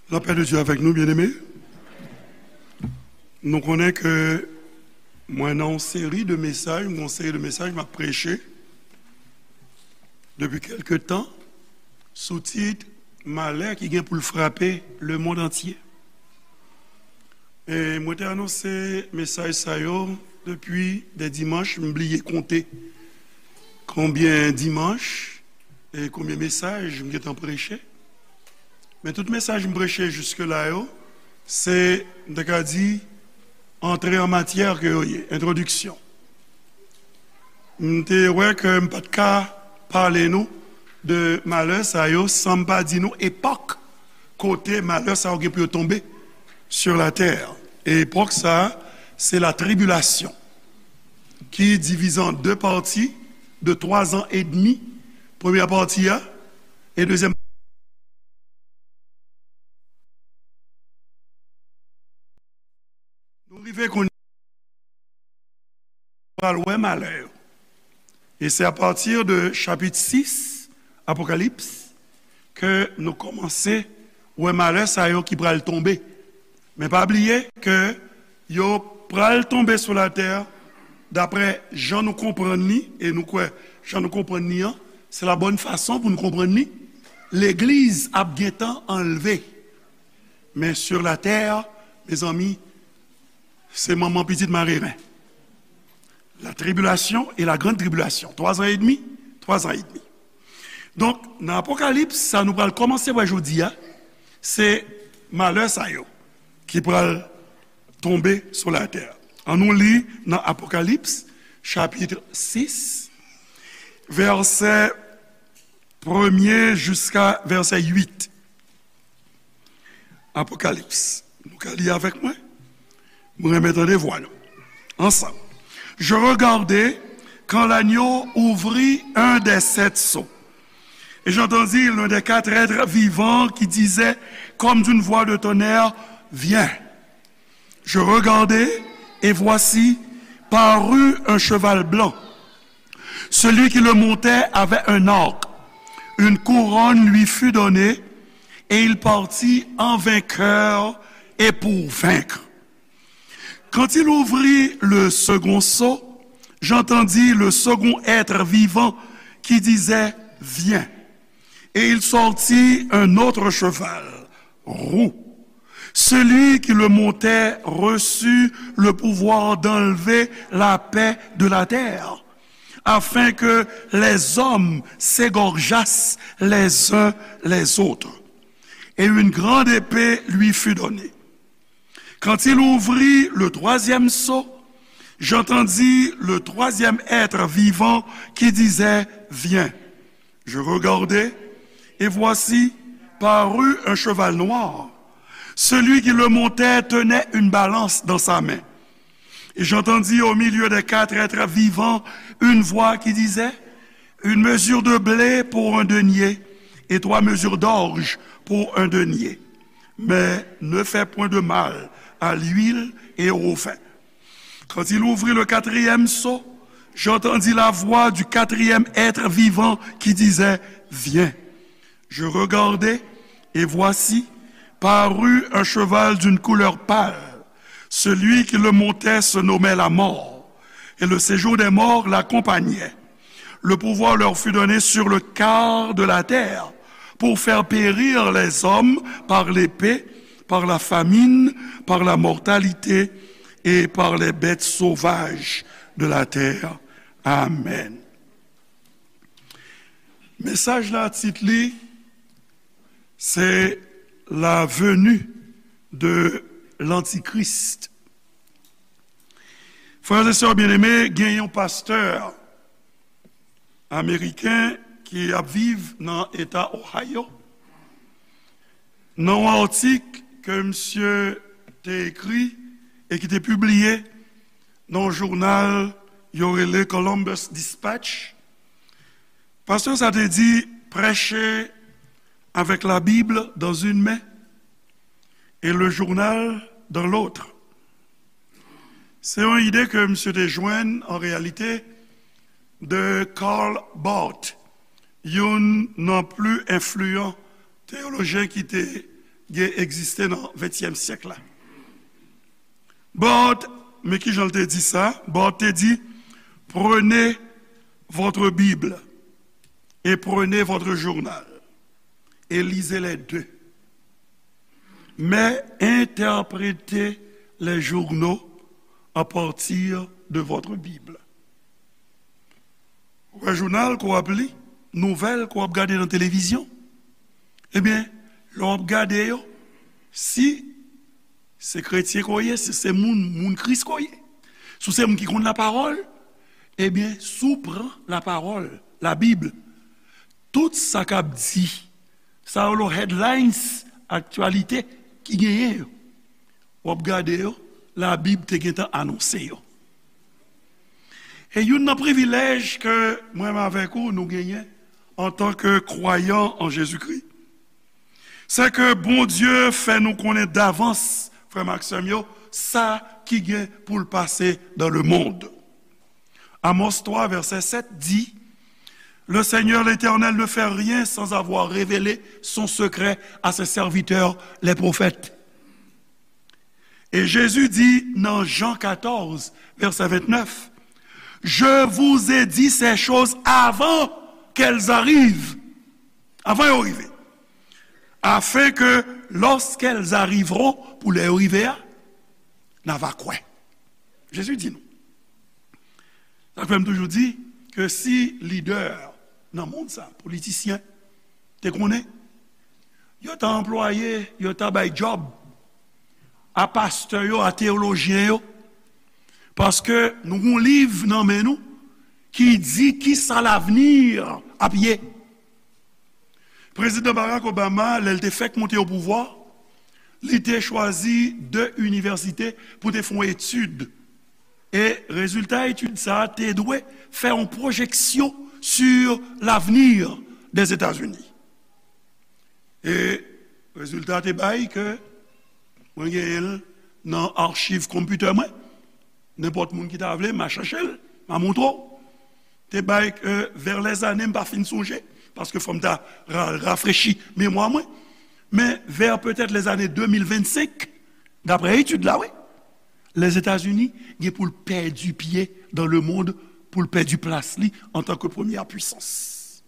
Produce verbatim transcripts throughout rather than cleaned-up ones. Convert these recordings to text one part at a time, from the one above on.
Lapè de Dye avèk nou, byeneme. Nou konnen ke mwen nan yon seri de mesaj, yon seri de mesaj m ap preche depi kèlke tan sou tit malè ki gen pou l frape lemonn antye. E mwen te anonse mesaj sa yo depi de dimanch, m bliye konte konbyen dimanch e konbyen mesaj m gentan preche. Men tout mesaj m preche jiske la yo, se, m te ka di, antre an matyè ke yo ye, entwodiksyon. M te wè ke m pa t ka pale nou de malè sa yo san m pa di nou epòk kote malè sa yo gen pou yo tonbe sur la terre. E epòk sa a, se la tribilasyon, ki divize an de pati de twa zan edmi. Premyè pati a, e dezyèm. Nou rive kounye a, pral wè malè yo. E se apati de chapit sis Apokalips ke nou kòmanse wè malè sa yo ki pral tonbe. Men pa bliye ke yo pral tonbe sou latè, daprè jan nou konprann li, e nou kwè jan nou konprann li an, se la bòn fason pou nou konprann li, legliz ap gentan anlve. Men sur la terre, mezanmi, se manman pitit mareren. La tribulation et la grande tribulation. Twa zan edmi, twa zan edmi. Donk, nan Apokalips, sa nou pral kòmanse wè jodi a, se malè sa yo ki pral tonbe sou latè. Annou li nan Apokalips, chapit sis, vèsè premye jiska vèsè uit. Apokalips. Nou ka li avèk mwen? Mwen renmen tande vwa nou. Ansanm. Je regardai quand l'agneau ouvrit un des sept sceaux. Et j'entendis l'un des quatre êtres vivants qui disait comme d'une voix de tonnerre, viens. Je regardai, et voici, parut un cheval blanc. Celui qui le montait avait un arc. Une couronne lui fut donnée, et il partit en vainqueur et pour vaincre. Quand il ouvrit le second sceau, j'entendis le second être vivant qui disait, viens. Et il sortit un autre cheval, roux. Celui qui le montait reçut le pouvoir d'enlever la paix de la terre, afin que les hommes s'égorgeassent les uns les autres. Et une grande épée lui fut donnée. Quand il ouvrit le troisième sceau, j'entendis le troisième être vivant qui disait, viens. Je regardai, et voici, parut un cheval noir. Celui qui le montait tenait une balance dans sa main. Et j'entendis au milieu des quatre êtres vivants une voix qui disait, une mesure de blé pour un denier, et trois mesures d'orge pour un denier. Mais ne fais point de mal à l'huile et au vin. Quand il ouvrit le quatrième sceau, j'entendis la voix du quatrième être vivant qui disait, viens. Je regardai, et voici, parut un cheval d'une couleur pâle. Celui qui le montait se nommait la mort, et le séjour des morts l'accompagnait. Le pouvoir leur fut donné sur le quart de la terre, pour faire périr les hommes par l'épée, par la famine, par la mortalité et par les bêtes sauvages de la terre. Amen. Mesaj la, tit li, se la venue de l'Antichrist. Frè e sè byeneme, gen yon pastè ameriken ki ap viv nan eta Ohio. Nan yon atik ke misye te ekri e ki te pibliye nan yon jounal yo rele Columbus Dispatch, pastè sa te di, prêcher avec la Bible dans une main et le journal dans l'autre. Se yon ide ke misye te jwenn, an reyalite, de Karl Barth, youn nan pli enfliyan teyolojyen ki te gen egziste nan ventyèm syèk la. Barth, men ki jan l te di sa? Barth te di, prenez votre Bible et prenez votre journal et lisez les deux. Mais interprétez les journaux à partir de votre Bible. Ou wè jounal ke w ap li, nouvèl ke w ap gade nan televizyon, ebyen, lè w ap gade yo, si se kretyen ke w ye, si se moun, moun Kris ke w ye, si w se moun ki konn lapawòl, ebyen, si w pran lapawòl, Labib, tout sa k ap di, sa yo, headlines, aktyalite ki genyen yo, w ap gade yo, Labib te gentan anonse yo. E youn nan privilèj ke mwen menm avèk ou nou genyen antanke kwayan an Jezikri, se ke Bondye fè nou konnen davans, frè m ak sè m yo, sa ki gen pou l pase dans le monde. Amos twa, vèsè sèt di, le Seigneur l'Éternel ne fait rien sans avoir révélé son secret à ses serviteurs, les prophètes. Et Jésus dit dans Jean quatorze, verset vingt-neuf, je vous ai dit ces choses avant qu'elles arrivent. Avan yo rive. Afin que lorsqu'elles arriveront, pou lè yo rive a, n a va kwè. Jezi di nou. Sa fè m toujou di ke si lidè nan mond sa, politisyen, te konnen, yo ta anplwaye, yo ta bay djòb a pastè yo, a teyolojyen yo, paske nou gon liv nan men nou ki di kisa lavni ap ye. Prezidan Barack Obama, lè l te fèk monte o pouvwa, li te chwazi de inivèsite pou te fè yon etid. E rezilta etid sa a te dwe fè yon pwojeksyon sur l'avenir des États-Unis. E rezilta te bay ke mwen genyen l nan achiv konpitè mwen. Nenpòt moun ki ta vle, m a chèche l, m a montre w. Te bay, euh, vers les années, m pa fin sonje, paske fò m ta ra-, rafrechi memwa mwen. Men vers peut-être les années deux mille vingt-cinq, daprè etid la, wi, Lèzetazini gen pou l pèdi pye dans le monde, pou l pèdi plas li antanke premyè pwisans.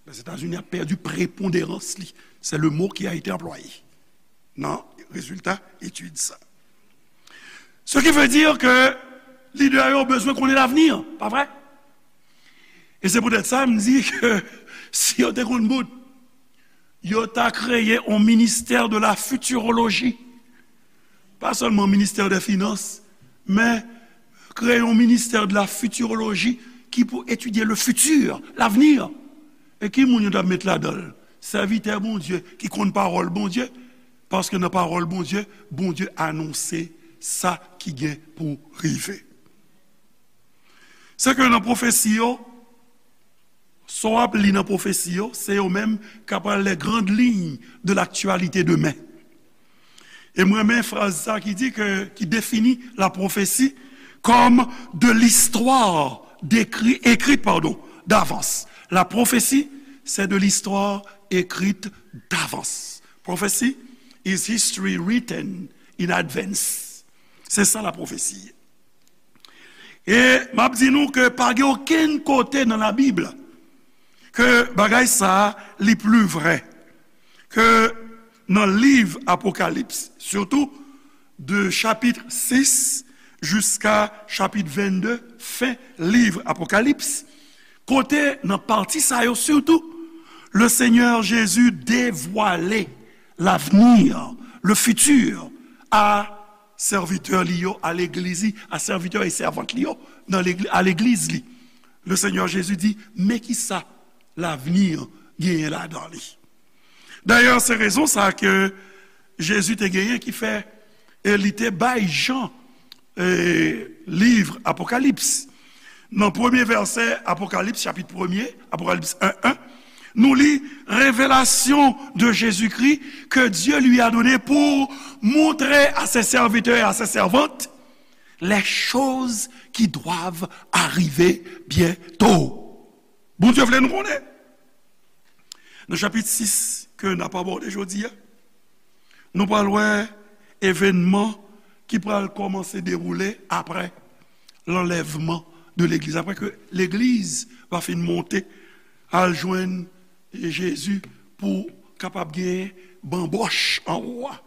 Lèzetazini ap pèdi preponderans li. C'est le mot qui a été employé nan rezilta etid sa. Ce qui veut dire que lidè yo bezwen konnen lavni, pa vre? E se poutèt sa m di ke si yo te konn bout, yo ta kreye yon ministè de la futurologie. Pa sèlman ministè de finans, men kreye yon ministè de la futurologie ki pou etidye le futur, l'avenir. E ki moun yo t ap met ladan l? Sèvitè Bondye ki konn pawòl Bondye, paske nan pawòl Bondye, Bondye anonse sa ki gen pou rive. Se ke nan pwofesi yo, sa w ap li nan pwofesi yo, se yo menm k ap pral les grandes lignes de l'actualité demain. E m renmen fraz sa ki di ke, ki defini la prophétie comme de l'histoire décrit, écrite, pardon, d'avance. La prophétie, c'est de l'histoire écrite d'avance. Prophecy is history written in advance. Se sa la pwofesi ye. E m ap di nou ke pa gen okenn kote nan Labib ke bagay sa a li pli vrè ke nan liv Apokalips, sitou de chapit sis jiska chapit vennde, fen liv Apokalips, kote nan pati sa yo sitou, le Seigneur Jésus dévoile l'avenir, le futur, a sèvitè li yo, a legliz li, a sèvitè e sèvant li yo, nan legli-, a legliz li. Le Seigneur Jésus di, men kisa lavni genyen ladan li. Dayè, se rezon sa ke Jezi te genyen ki fè, e li te bay Jan, e, liv Apokalips. Nan premye vèsè Apokalips, chapit premye, Apokalips en en, nou li, révélation de Jésus-Christ que Dieu lui a donné pour montrer à ses serviteurs et à ses servantes les choses qui doivent arriver bientôt. Bondye vle nou konnen. Nan chapit sis ke n ap abòde jodi a, Nou pral wè evènman ki pral kòmanse dewoule apre lanlèvman de legliz. Apre ke legliz va fin monte al jwenn Jezi pou kapab gen banbòch anwo a.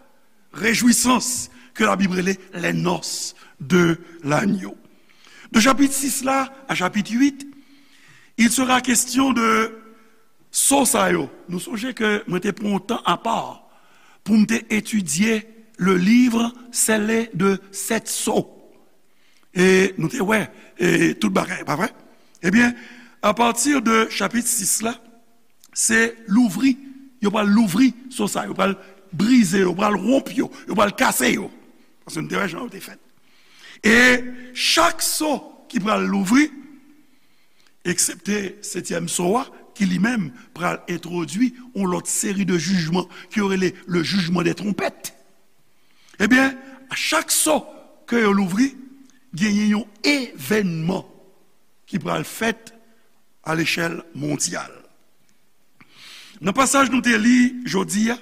Rejwisans ke Labib rele les noces de l'agneau. De chapit sis la a chapit uit, il sera question de so sa yo. Nou sonje ke mwen te pran yon tan apa pou m te etidye le livre scellé de sept sceaux. E nou te wè e tout bagay, pa vre? Ebyen, apati de chapit sis la, se louvri, yo pral louvri so sa, yo pral brize, yo pral wonp yo, yo pral kase yo. Paske nou te wè jan yo te fèt. E chak so ki pral louvri, eksepte setyèm so a, ki li menm pral entwodui yon lòt seri de jijman ke yo rele le jugement des trompettes. Ebyen, a chak so ke yo louvri, genyen yon evènman ki pral fèt a lechèl mondyal. Nan pasaj nou te li jodi a,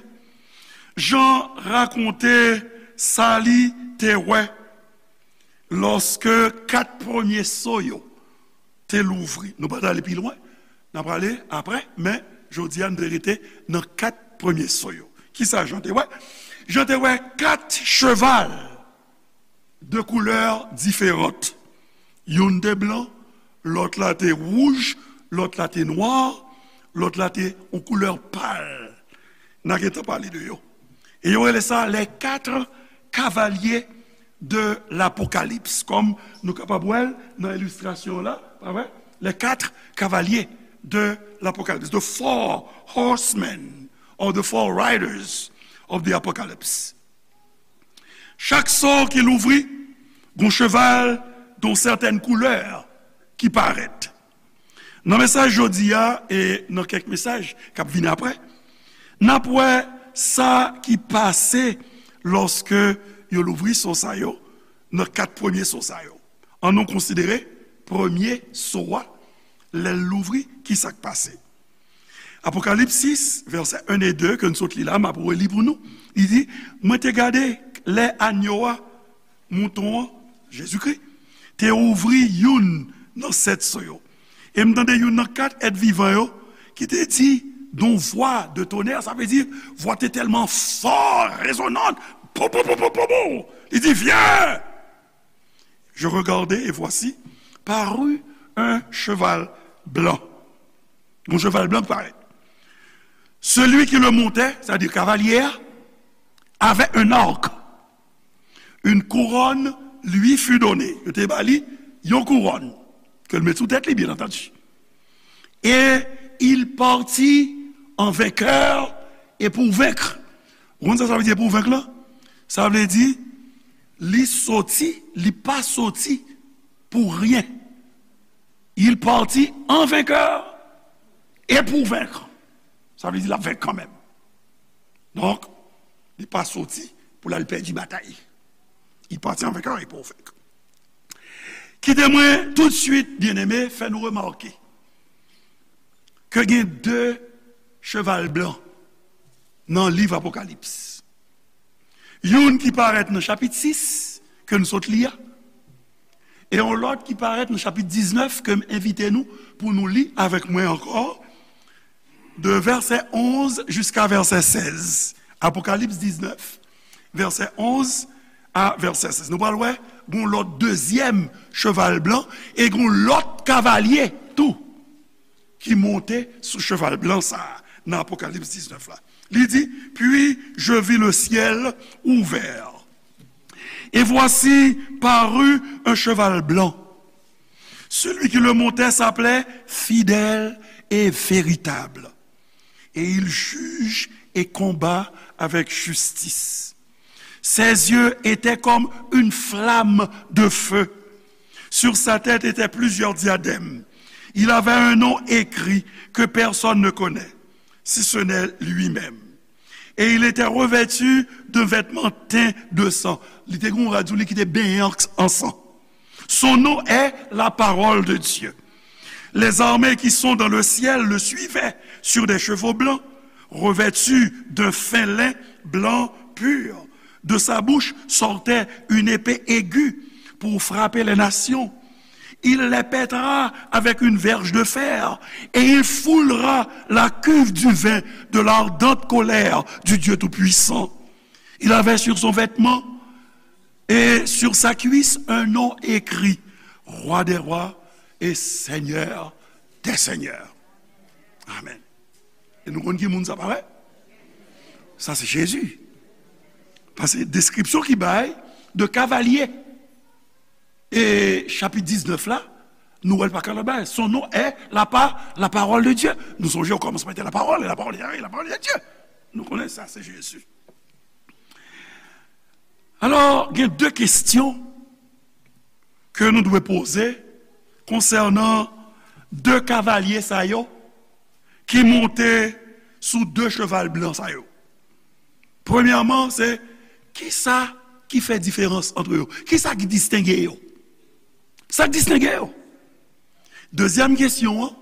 Jan rakonte sa li te wè lòske kat premye so yo te louvri. Nou pa t ale pi lwen, n ap ale apre, men jodi a nou te rete nan kat premye so yo. Kisa Jan te wè? Jan te wè kat cheval de koulè diferan. Youn te blan, lòt la te wouj, lòt la te nwa, lòt la te yon koulè pal. N a gentan pale de yo. E yo rele sa les quatre cavaliers de l'Apocalypse. Kòm nou kapab wè l nan ilistrasyon la, pa vre? Les quatre cavaliers de l'Apocalypse, the four horsemen or the four riders of the Apocalypse. Chak so ki louvri, gon cheval yon sètèn koulè ki parèt. Nan mesaj jodi a e nan kèk mesaj k ap vini apre, n ap wè sa ki pase lòske yo louvri so sa yo, nan kat premye so sa yo. Ann nou konsidere premye so a, lè l louvri, ki sa k pase. Apokalips sis, vèsè en e de, ke n sot li la, m ap reli pou nou. Li di, mwen te gade lè anyo a, mouton an, Jezikri, te ouvri youn nan sèt so yo. E m tande youn nan kat èt vivan yo ki te di, d'un vwa de tonè, sa vle di, vwa te tèlman fò, rezonan, pou, pou, pou, pou, pou, pou. Li di, viens! Je regardai, et voici, parut un cheval blanc. Yon cheval blan ki parèt. Celui qui le montait, c'est-à-dire cavalier, avait un arc. Une couronne lui fut donnée. Yo te ba li yon kouwòn. Ke l met sou tèt li, bien entendu. Et il partit en vainqueur et pour vaincre. Ou konn sa sa vle di pour vaincre la? Sa vle di, li soti, li pa soti pour rien. Il partit en vainqueur et pour vaincre. Sa vle di l ap venk kanmenm. Donk, li pa soti pou l al pèdi batay. Il partit en vainqueur et pour vaincre. Kite mwen tout de suite, byeneme, fè nou remake ke gen de cheval blan nan liv Apokalips. Youn ki parèt nan chapit sis, ke n sot li a, e yon lòt ki parèt nan chapit diznèf, ke m envite nou pou nou li avèk mwen ankò, de vèsè onz jiska vèsè sèz. Apokalips diznèf, vèsè onz a vèsè sèz. Nou pral wè, gon lòt dezyèm cheval blan, e gon lòt kavalye tou ki monte sou cheval blan sa a nan Apokalips diznèf la. Li di, puis je vis le ciel ouvert. Et voici parut un cheval blanc. Celui qui le montait s'appelait Fidèle et Véritable. Et il juge et combat avec justice. Ses yeux étaient comme une flamme de feu. Sur sa tête étaient plusieurs diadèmes. Il avait un nom écrit que personne ne connaît, si ce n'est lui-même. Et il était revêtu d'un vêtement teint de sang. Li te gen yon rad sou li ki te benyen an, an san. Son nom est la parole de Dieu. Les armées qui sont dans le ciel le suivaient sur des chevaux blancs, revêtus d'un fin lin blanc pur. De sa bouche sortait une épée aiguë pour frapper les nations. Il les pètera avec une verge de fer, et il foulera la cuve du vin de l'ardente colère du Dieu Tout-Puissant. Il avait sur son vêtement et sur sa cuisse un nom écrit, Roi des rois et Seigneur des seigneurs. Amen. E nou konn ki moun sa, pa vre? Sa se Jezi. Paske deskripsyon ki bay de kavalye e chapit diznèf la, nou wè l pa ka lòt bagay. Son nom est la pa-, la parole de Dieu. Nou sonje okòmansman te la parole, la parole était avec Dieu, la parole était avec Dieu. Nou konnen sa se Jezi. Alò, gen de kestyon ke nou dwe poze konsènan de kavalye sa yo ki monte sou de cheval blan sa yo. Premyèman, se kisa ki fè diferans ant yo? Kisa ki distenge yo? Sa k distenge yo? Dezyèm kesyon an,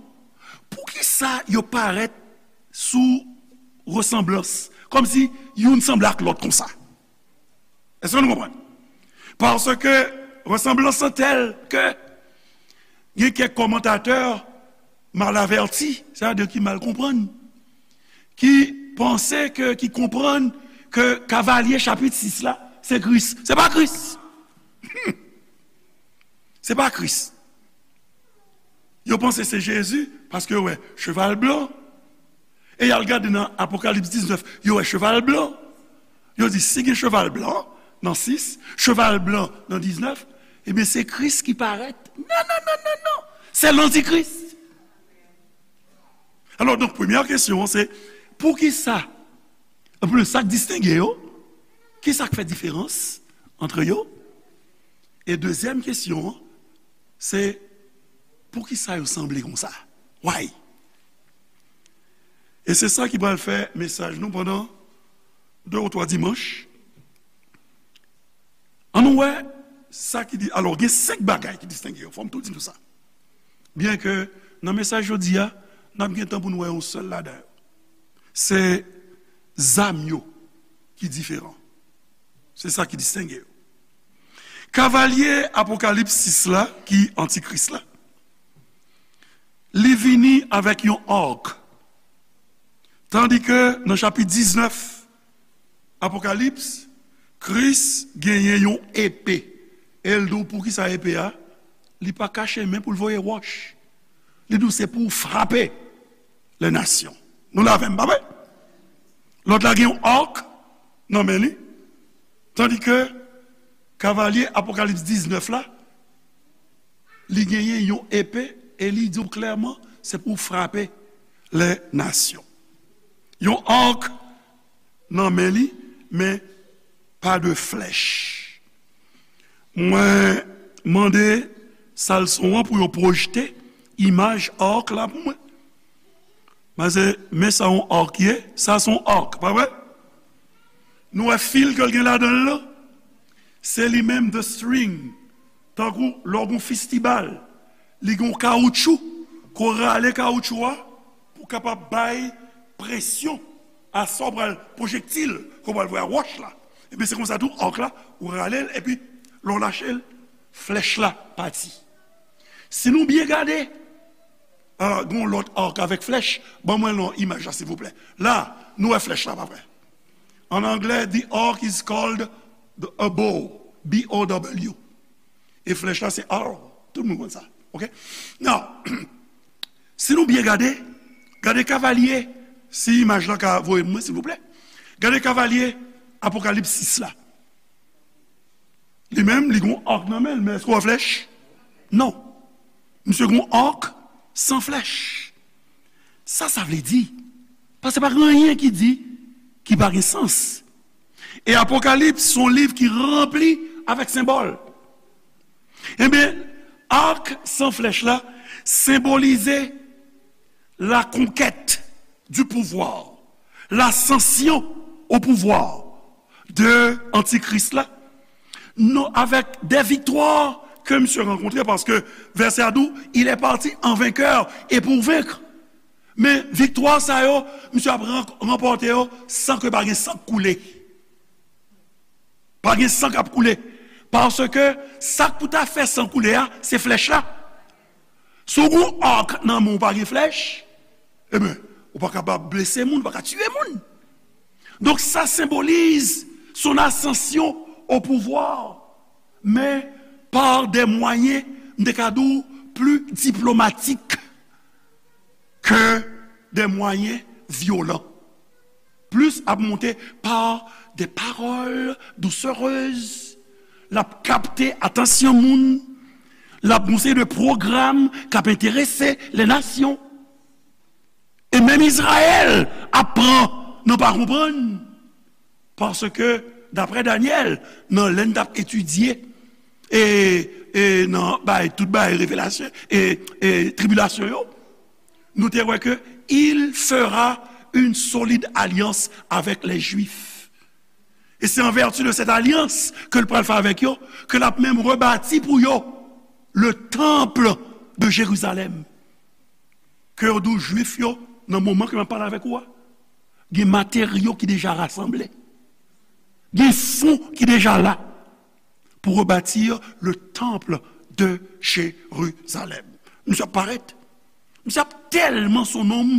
poukisa yo parèt sou resanblans? Kòmsi youn sanble ak lòt konsa. Èske nou konprann? Paske resanblans lan tèl ke gen kèk kòmantatè mal avèti, sètadi ki mal konprann, ki panse ke, ki konprann ke kavalye chapit sis la, se Kris. Se pa Kris. Se pa Kris. Yo panse se Jezi paske yo wè cheval blan. E y al gade nan Apokalips diznèf, yo wè cheval blan. Yo di, si gen cheval blan nan sis, cheval blan nan diznèf, ebyen, se Kris ki parèt. Non, non, non, non, non. Se lantikris. Alò, donk, premyè kesyon an, se, poukisa, anplis, sa k distenge yo? Kisa k fè diferans ant yo? E dezyèm kesyon an, se, poukisa yo sanble konsa? Why? E se sa ki pral fè mesaj nou pandan de ou twa dimanch. Ann nou wè sa ki di, alò, gen senk bagay ki distenge yo. Fò m tou di nou sa. Byenke nan mesaj jodi a, n ap gen tan pou nou wè yon sèl ladan yo. Se zam yo ki diferan. Se sa ki distenge yo. Kavalye Apokalips sis la, ki antikris la, li vini avèk yon ark. Tandike nan chapit diznèf Apokalips, Kris genyen yon epe. E l di w poukisa epe a, li pa kache men pou l voye wòch. Li di w se pou w frape lè nasyon. Nou la avè m, pa vre? Lòt la gen yon ark nan men li, tandike kavalye Apokalips diznèf la, li genyen yon epe e li di w klèman, se pou w frape lè nasyon. Yon ark nan men li, men pa de flèch. Mwen mande salson an pou yo pwojte imaj ark la pou mwen. Paske men sa yon ark ye, sa se yon ark, pa vre? Nou wè fil ke l gen ladan l lan? Se li menm the string. Tankou lè w gen yon fistibal, li gen yon kawoutchou, ke w rale kawoutchou a pou kapab bay presyon a sa w pral pwojektil, ke w pral voye a wòch la. Ebyen, se konsa tou, ark la, ou rale l, epi lè w lache l, flèch la pati. Si nou byen gade, ah, gen yon lòt ark avèk flèch, ban mwen non imaj la, silvouplè. La, nou wè flèch la, pa vre? An anglè, the ark is called the, a bow, B O W. E flèch la, se arrow. Tout moun konn sa. Ok? Now, si nou byen gade, gade kavalye, si imaj la ka voye mwen, silvouplè. Gade kavalye Apokalips sis la. Li menm, li gon ark nan men l, men èske w wè flèch? Non. Misye gon ark san flèch. Sa sa vle di? Paske pa gen anyen ki di ki pa gen sans. E Apokalips se yon liv ki ranpli avèk senbòl. Ebyen, ark san flèch la senbolize la conquête du pouvoir, l'ascension au pouvoir de antikris la, non, avec des victoires que misye rankontre, paske vèsè a di w, il est parti en vainqueur et pour vaincre. Men viktwa sa yo, misye ap ran-, ranpòte yo san ke pa gen san k koule. Pa gen san k ap koule. Paske sa k pou ta fè san koule a, se flèch la. Si w gen yon ak nan men w, pa gen flèch, ebyen, ou pa kapab blese moun, ou pa ka tiye moun. Donk, sa senbolize son ascension au pouvoir, mais par des moyens, m te ka di w, plus diplomatiques que des moyens violents. Plis ap monte par des paroles doucereuses. L ap kapte atansyon moun. L ap gon seri de pwogram k ap enterese les nations. E menm Izrayèl ap pran nan pa konprann. Paske, daprè Danyèl, nan lè n t ap etidye, e, e nan bay, tout bay revelasyon, e, e tribilasyon yo, nou te wè ke il fera une solide alliance avec les Juifs. E se an vèti de cette alliance ke l pral fè avèk yo, ke l ap menm rebati pou yo le temple de Jérusalem. Ke yo di w Jwif yo, nan moman ke m ap pale avèk ou a, gen materyo ki deja rasanble. Gen fon ki deja la pour rebâtir le temple de Jérusalem. Misye ap parèt. Misye ap tèlman se yon nonm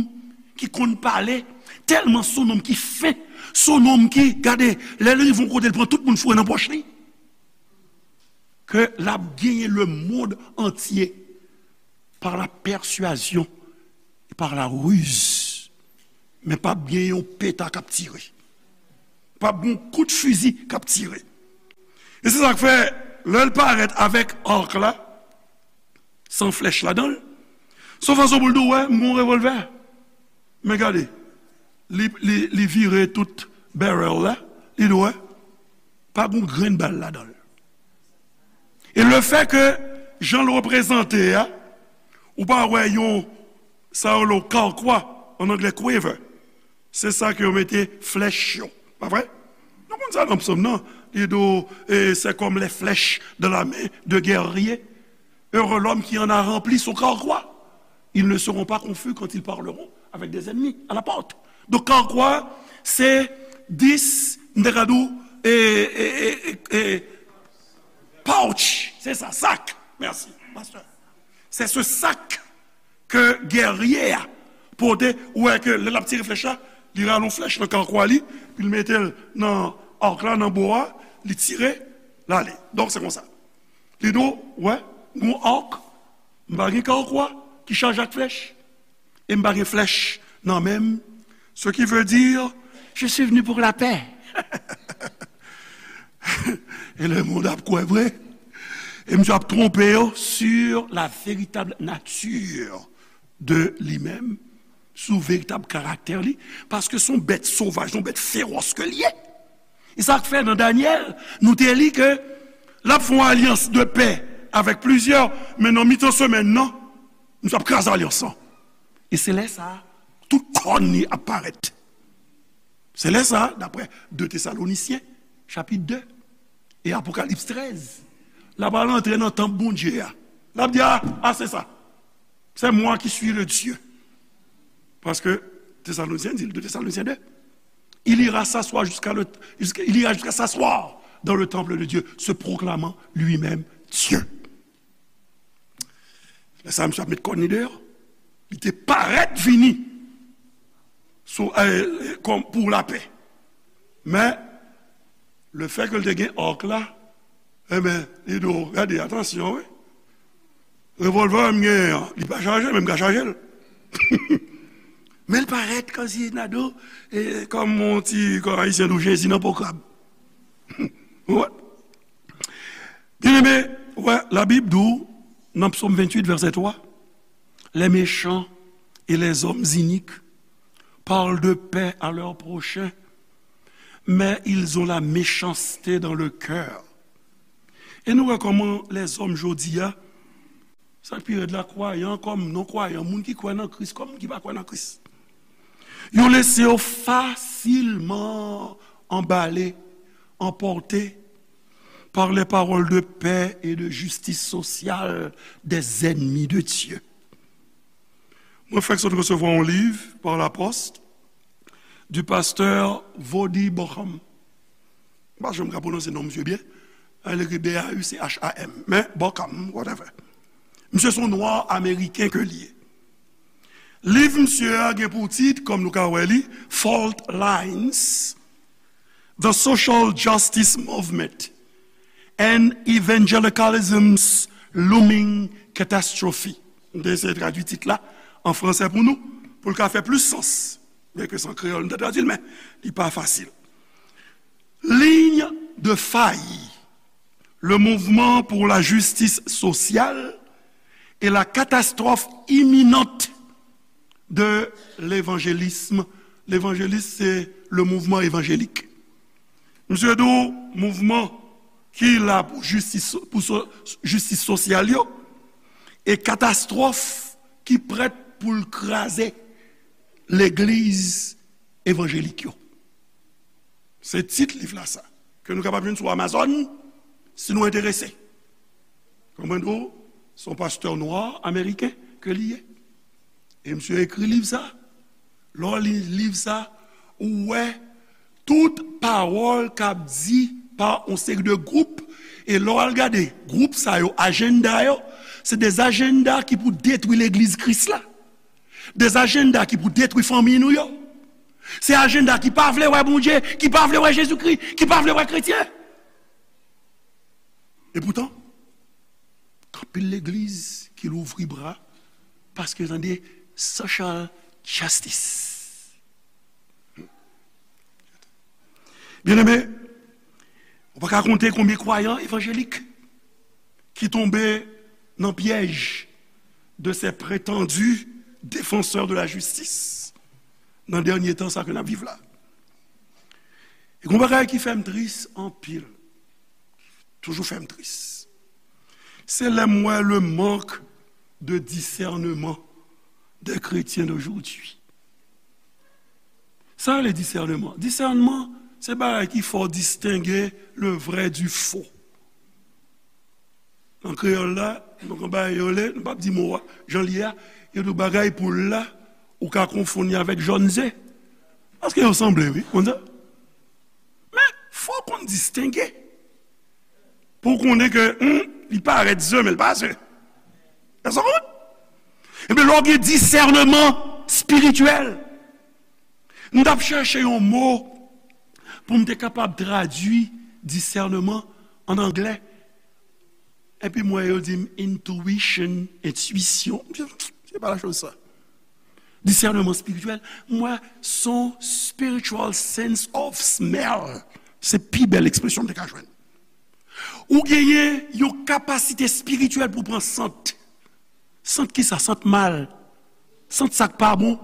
ki konn pale, tèlman se yon nonm ki fen, se yon nonm ki, gade, lè l rive yon kote, l pran tout moun foure nan pòch li. Ke l ap genyen le monde entier par la persuasion et par la ruse. Men p ap gen yon peta k ap tire. P ap gen yon kout fizi k ap tire. E se sa k fè, lè l parèt avèk ak la, san flèch ladan l, se yon fason pou l di w, wè, m gen yon revòlvè. Men gade, li, li, li vire tout barrel la, li di w, wè, pa gen yon grenn bal ladan l. E lefètke jan l reprezante a, ou pa wè yon, sa yo rele yon karkwa, an anglè quiver. Se sa ke yo mete flèch yo. Pa vre? Nou konn sa nan Psaume nan. Li di w, e, c'est comme les flèches dans la main de guerrier. Heureux l'homme qui en a rempli son carquois. Ils ne seront pas confus quand ils parleront avec des ennemis à la porte. Donk, karkwa, se dis, m te ka di w, e, e, e, e, e, pouch. Se sa, sak. Mèsi, pastè. Se se sak ke gèrye a pote, ou wè ke lè l ap tire flèch la, li rale yon flèch nan karkwa li, epi l mete l nan ak la, nan bo a, li tire, l ale. Donk, se konsa. Li di w, wè, gon ak, m pa gen karkwa ki chaje ak flèch, e m pa gen flèch nan men m. Ce qui veut dire, je suis venu pour la paix. E lemonn ap kwè vre. E misye ap twonpe yo sur la véritable nature de li menm, sou veritab karaktè li, paske se yon bèt sovaj, se yon bèt fewòs ke l ye. E sa k fè nan Danyèl, nou te li ke l ap fè yon alyans de pè avèk plizyè, men nan mitan semèn nan, misye ap kraze alyans lan. E se lè sa a, tout kòn li ap parèt. Se lè sa a, daprè de Tesalonisyen, chapit de, e Apokalips trèz, l ap al antre nan tanp Bondye a. L ap di, a, a, se sa. C'est moi qui suis le Dieu. Paske Tesalonisyen di, de Tesalonisyen de, il ira s'asseoir jusqu'à le, jusqu'à, il ira jusqu'à s'asseoir dans le temple de Dieu, se proclamant lui-même Dieu. Lè sa, misye ap met kòn li deyò. Li te parèt vini sou, eh, kòm pou lapè. Men, lefètke l te gen ak la, enben, li di w, gade, atansyon, wi. Revòlvè m genyen an, li pa chaje, men m ka chaje l. Men l parèt kòmsi n a di w, e, kòm yon ti, kòm Ayisyen di w, Jezi nan po krab. Ou wè? Byeneme, ou wè, Labib di w, nan Psaume vingt-huit, verset trois, les méchants et les hommes iniques parlent de paix à leur prochain, mais ils ont la méchanceté dans le cœur. E nou wè kòman lèzòm jodi a, sa k pi rèd la, kwayan kòm non kwayan, moun ki kwè nan Kris kòm moun ki pa kwè nan Kris, yo lese yo fasilman anbale, anpòte par les paroles de paix et de justice sociale des ennemis de Dieu. Mwen fèk sot resevwa yon liv par la poste du pasteur Voddie Baucham. M pa janm ka pwononse non misye byen. Li ekri B A U C H A M. Men, Bauckham, whatever. Misye se yon nwa ameriken ke li ye. Liv misye a gen pou tit, kòm nou ka wè li, Fault Lines, The Social Justice Movement and Evangelicalism's Looming Catastrophe. M te eseye tradui tit la an fransè pou nou, pou l ka fè plis sans. Byenke se an kreyòl m te tradui l, men li pa fasil. Ligne de faille, le mouvement pour la justice sociale et la catastrophe imminente de l'évangélisme. Levanjelis, se le mouvman evanjelik. Misye di w mouvman ki la pou jistis, pou so-, jistis sosyal yo, e katastwòf ki prèt pou l kraze legliz evanjelik yo. Se tit liv la sa, ke nou kapab jwenn sou Amazon, si nou enterese. Konprann ou? Se yon pastè nwa ameriken ke li ye. E misye ekri liv sa. Lè w li liv sa, ou wè tout pawòl k ap di pa yon seri de gwoup. E lè w al gade gwoup sa yo, ajanda yo, se de ajanda ki pou detwi legliz Kris la. De ajanda ki pou detwi fanmi nou yo. Se ajanda ki pa vle wè Bondye, ki pa vle wè Jezikri, ki pa vle wè kretyen. E poutan, gen anpil legliz ki louvri bra paske yo tande social justice. Byeneme, ou pa ka konte konbyen kwayan evanjelik ki tonbe nan pyèj de ces prétendus défenseurs de la justice nan dènye tan sa ke n ap viv la. E gon bagay ki fè m tris anpil, toujou fè m tris, se lè m wè le manque de discernement des chrétiens d'aujourd'hui. Sa rele disèneman. Disèneman, se bagay ki fè w distenge le vrai du faux. Nan kreyòl la, nou gen bagay yo rele, nou p ap di mo a, jan l ye a, yo di w bagay poul la, ou ka konfonn li avèk jòn ze. Paske yo sanble, wi, konn sa. Men, fò w konn distenge. Pou w konnen ke, hmm, li parèt ze, men l pa ze. Èske w konprann? Ebyen, lè w gen disèneman espirityèl, m t ap chèche yon mo pou m te kapab tradui disèneman an anglè. Epi m wè yo di m intuition, entwisyon. Se pa la chose sa. Disèneman espirityèl, m wè se yon spiritual sense of smell. Se pi bèl ekspresyon m te ka jwenn. Ou genyen yon kapasite espirityèl pou w pran sant. Sant ki sa? Sant mal. Sant sa k pa bon.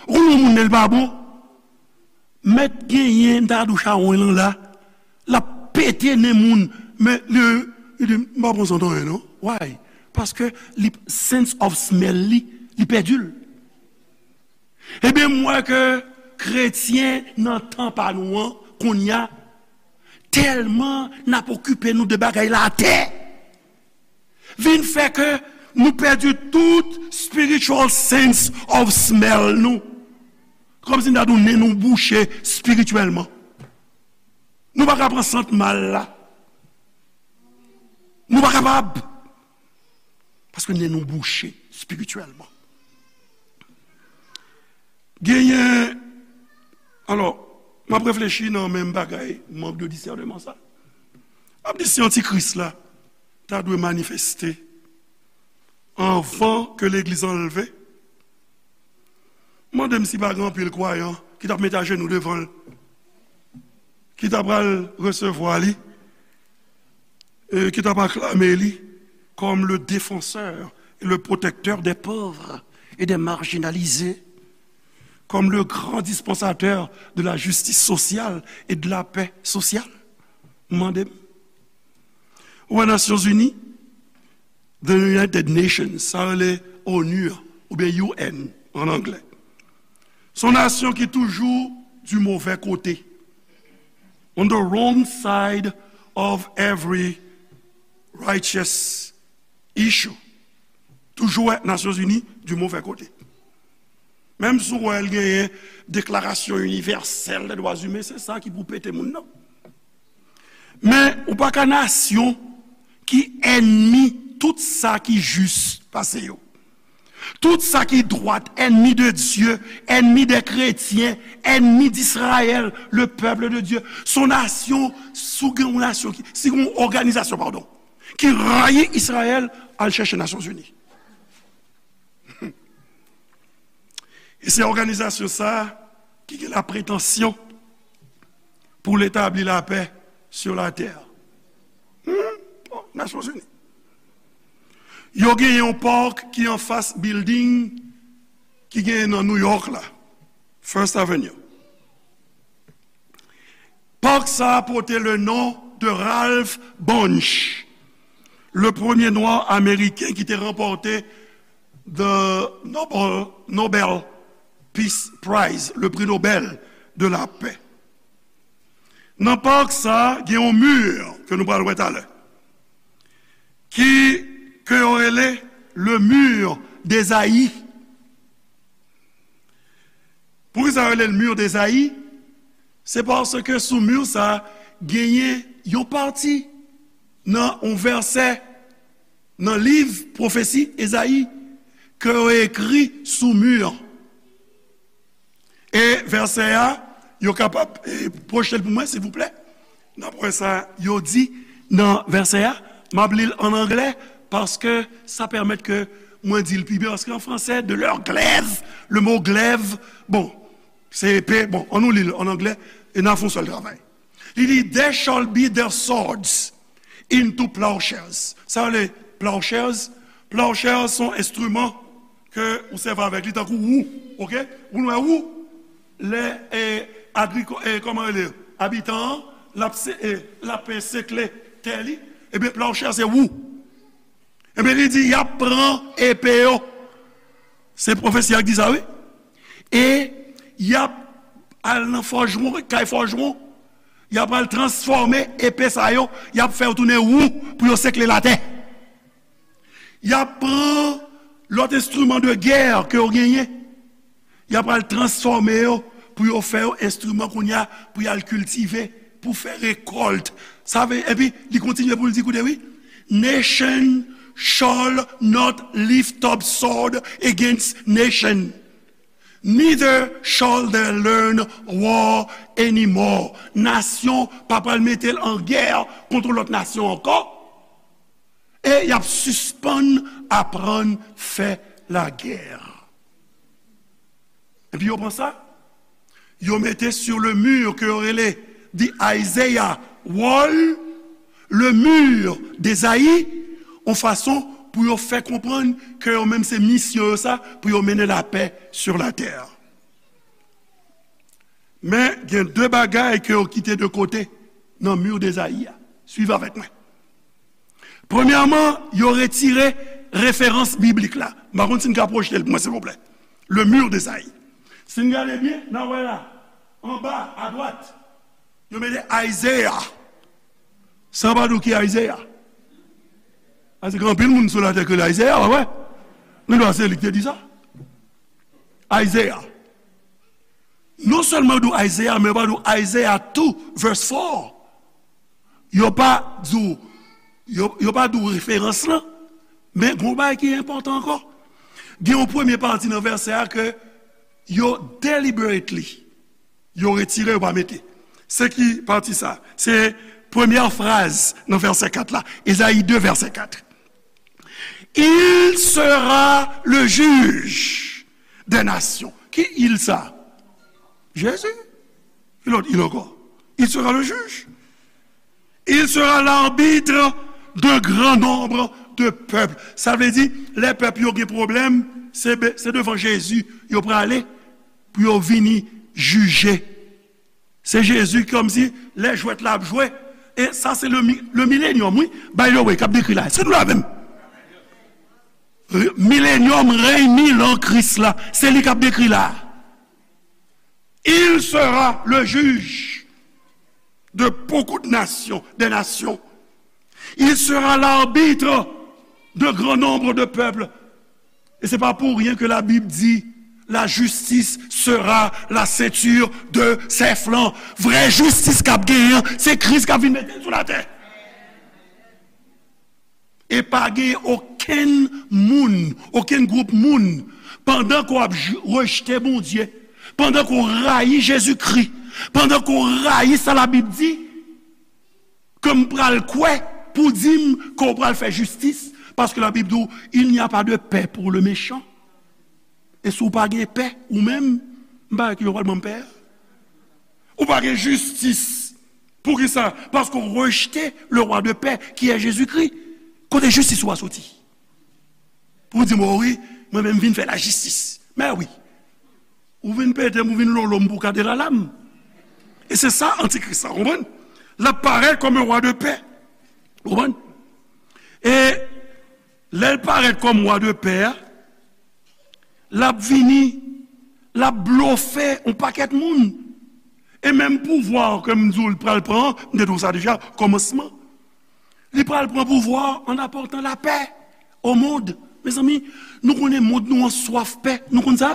Ou konn yon moun lè l pa bon? Mèt genyen, m ta di w chawony lan la, l ap pete nen moun, men li, li di, "M pa pran sant anyen non." Why? Paske li, sense of smell li, li pèdi l. Ebyen, m wè ke kretyen nan tan pa nou an, kounye a, tèlman n ap okipe nou de bagay latè, vin fè ke nou pèdi tout spiritual sense of smell nou. Kòmsi n ta di w nen nou bouche espirityèlman. Nou pa ka pran sant mal la. Nou pa kapab. Paske nen nou bouche espirityèlman. Genyen, alò, m ap reflechi nan menm bagay, mank de disèneman sa. M ap di si antikris la ta dwe manifeste anvan ke legliz anlve, mande m si pa gen anpil kwayan ki t ap mete ajenou devan l, ki ta pral resevwa li, e ki t ap aklame li comme le défenseur et le protecteur des pauvres et des marginalisés, comme le grand dispensateur de la justice sociale et de la paix sociale. Mande m. Ou wè Nasyonzini, The United Nations, sa rele onu an, oubyen U N an anglè. Se yon nasyon ki toujou du mauvais côté, on the wrong side of every righteous issue. Toujou wè Nasyonzini du mauvais côté. Menm si w wè l genyen deklarasyon inivèsèl de dwa imen, se sa ki pou pete moun nan. Men ou pa ka nasyon ki ènmi tout sa ki jis pase yo. Tout sa ki dwat, ènmi de Dye, ènmi dè kretyen, ènmi d'Israël, le peuple de Dieu. Se yon nasyon, si w gen yon nasyon ki, si w gen yon òganizasyon, padon, ki rayi Izrayèl, al chèche Nasyonzini. E se òganizasyon sa a ki gen lapretansyon pou l etabli lapè sur la terre. Hmm? Bon, Nasyonzini. Yo genyen yon park ki anfas building ki genyen nan New York la, First Avenue. Park sa a pote le non de Ralph Bunche, le premye nwa ameriken ki te ranpòte the Nobel, Nobel Peace Prize, le prix Nobel de la paix. Nan park sa a, gen yon mi ke nou pral wè talè, ki, ke yo rele le mur d'Esaïe. Poukisa yo rele l mur d'Esaïe? Se paske sou mi sa a, genyen yon pati nan yon vèsè nan liv pwofesi Ezayi ke yo ekri sou mi an. E vèsè a, yo kapab, eh, pwojte l pou mwen, silvouplè? N ap wè sa yo di nan vèsè a. M ap li l ann anglè, paske sa pèmèt ke mwen di l pi byen, paske an fransè, de leur glaive, le mot glaive, bon, se epe, bon, ann nou li l ann anglè, e n a fè yon sèl travay. Li di, "They shall beat their swords into plowshares." Sa yo rele plowshares? Plowshares se yon enstriman ke ou sèvi avèk li tankou wou, oke? Ou wè wou? Lè, e, agriko-, e, kòman rele? Abitan an, l ap se-, e, l ap, e, sekle tè li. Ebyen, plowshare se wou. Ebyen, li di, y ap pran epe yo. Se pwofesi a ki di sa, wi. E y ap al nan fòjwon, kay fòjwon. Y ap al transfòme epe sa yo. Y ap fè yo tounen wou pou yo sekle latè. Y ap pran lòt enstriman de gè ke yo genyen. Y ap al transfòme yo pou yo fè yo enstriman kounye a pou y al kiltive, pou fè rekòlt. Sa vle, epi li kontinye pou l di, koute, wi, "Nation shall not lift up sword against nation, neither shall they learn war anymore." Nasyon pa pral mete l an gè kont lòt nasyon ankò. E y ap sispann aprann fè lagè. Epi yo pran sa, yo mete sur le mur ke yo rele the Isaiah Wall, le mur d'Esaïe, yon fason pou yo fè konprann ke yo menm se misyon yo sa, pou yo mennen lapè sur la terre. Men gen de bagay ke yo kite de kote nan mur d'Esaïe a. Swiv avèk mwen. Premyèman, yo retire referans biblik la. M pa konn si n ka pwojte l pou mwen, silvouplè. Le mur d'Esaïe. Si n gade byen, n a wè la, anba, adwat, yo mete Isaiah. Sa pa di w ki Isaiah? Paske gen anpil moun sou latè ki rele Isaiah, w wè. Men se li ki te di sa. Isaiah. Non sèlman yo di w Isaiah, men yo pa di w Isaiah two verse four. Yo pa di w, yo, yo pa di w referans lan, men gen yon bagay ki enpòtan ankò. Gen yon premye pati nan vèsè a ke yo deliberately, yo retire, yo pa mete. Se ki pati sa? Se premyè fraz nan vèsè kat la. Ezayi de, vèsè kat. Il sera le juge des nations. Ki il sa? Jezi. Ki lòt il ankò? Il sera le juge. Il sera l'arbitre d'un grand nombre de peuples. Sa vle di, lè pèp yo gen pwoblèm, se be-, se devan Jezi yo prale pou yo vini jije. Se Jezi kòmsi lè jwèt la ap jwe. E sa se le mi-, le milenyòm, wi. By the way, k ap dekri la. Se nou la menm. Re-, milenyòm, rèy mil an Kris la. Se li k ap dekri la. Il sera le juge de beaucoup de nations, des nations. Il sera l'arbitre de grand nombre de peuples. E se pa pou ryen ke Labib di, La justice sera la ceinture de ses flancs. Vrè jistis k ap genyen an, se Kris k ap vin mete l sou latè. E pa gen okenn moun, okenn gwoup moun, pandan ke w ap j- rejte Bondye, pandan ke w rayi Jezikri, pandan ke w rayi sa Labib di, ke m pral kwè pou di m ke w pral fè jistis, paske Labib di w, il n'y a pas de paix pour le méchant. E si w pa gen pè, ou menm, m pa wè ki jan w pral ban m pè a. Ou pa gen jistis. Poukisa? Paske w rejte le roi de paix, qui est Jésus-Christ. Kote jistis ou a soti? Pou w di m, o wi, mwen menm vin fè lajistis. Men wi. Ou vin pete m, ou vin lolo m pou kade lala m. E se sa antikris la, konprann? L ap parèt kòm yon wa de pè. Konprann? E lè l parèt kòm wa de pè a, l ap vini, l ap blofe yon pakèt moun. E menm pouvwa ke m di w l pral pran, m te di w sa deja, kòmansman. Li pral pran pouvwa an apòtan lapè o mond. Mezanmi, nou konnen mond nou an swaf pè. Nou konn sa?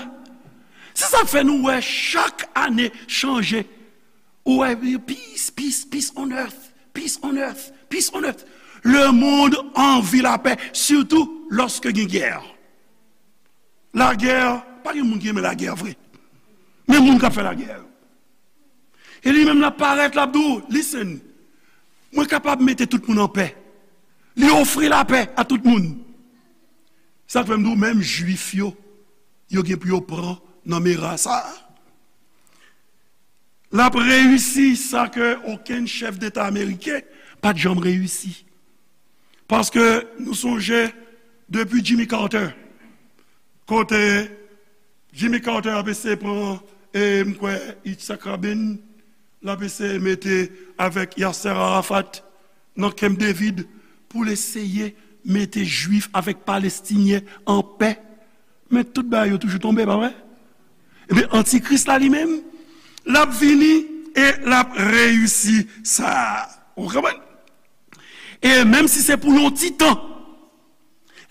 Se sa k fè nou wè chak ane chanje. Ou wè, peace, peace, peace on earth, peace on earth, peace on earth. Le monde a envie la paix, surtout lorsque gen guerre. Lagè, pa gen moun ki renmen lagè vre. Men moun k ap fè lagè yo. E li menm l ap parèt, l ap di w, listen, mwen kapab mete tout moun anpè. Li ofri lapè a tout moun. Sa k fè m di w, menm Jwif yo, yo gen pou yo pran nan mera sa a. L ap reyisi sa ke okenn chèf deta ameriken pa t janm reyisi. Paske nou sonje, depi Jimmy Carter, kote Jimmy Carter ap eseye pran, e m kwè, Yitzhak Rabin, l ap eseye mete avèk Yasser Arafat nan Camp David pou l eseye mete Jwif avèk Palestinyen an pè. Men tout bagay yo toujou tonbe, pa vre? Ebyen, antikris la li menm, l ap vini e l ap reyisi sa. Ou konprann? E menm si se pou yon ti tan,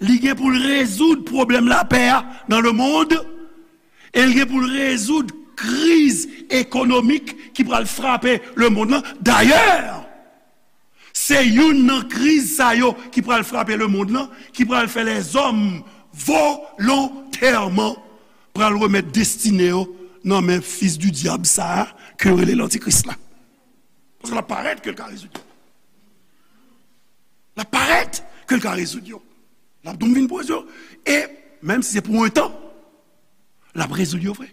li gen pou l rezoud pwoblèm lapè a nan lemonn, e l gen pou l rezoud kriz ekonomik ki pral frape lemonn nan. Dayè, se youn nan kriz sa yo ki pral frape lemonn nan, ki pral fè lèzòm volontèman pral remèt destine yo nan men fis di dyab sa a, ke yo rele lantikris la. Paske l ap parèt ke l ka rezoud yo. L ap parèt ke l ka rezoud yo. L ap tou vin poze yo. E menm si se pou yon tan, l ap rezoud yo vre.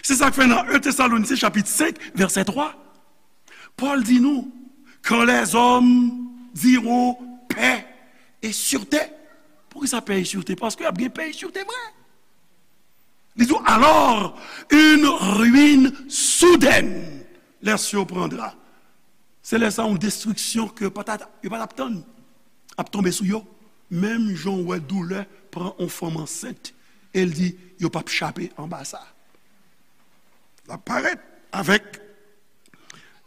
Se sa k fè nan en Tesalonisyen chapit senk, vèsè twa, Pòl di nou, quand les hommes diront paix et sûreté. Poukisa paix et sûreté? Paske y ap gen paix et sûreté vre. Li di, alors, une ruine soudaine les surprendra. Se lè sa yon destriksyon ke yo pa t, yo pa t ap tann ap tonbe sou yo. Menm jan w wè doulè pran yon fanm ansent, e l di, yo p ap chape anba sa. L ap parèt avèk,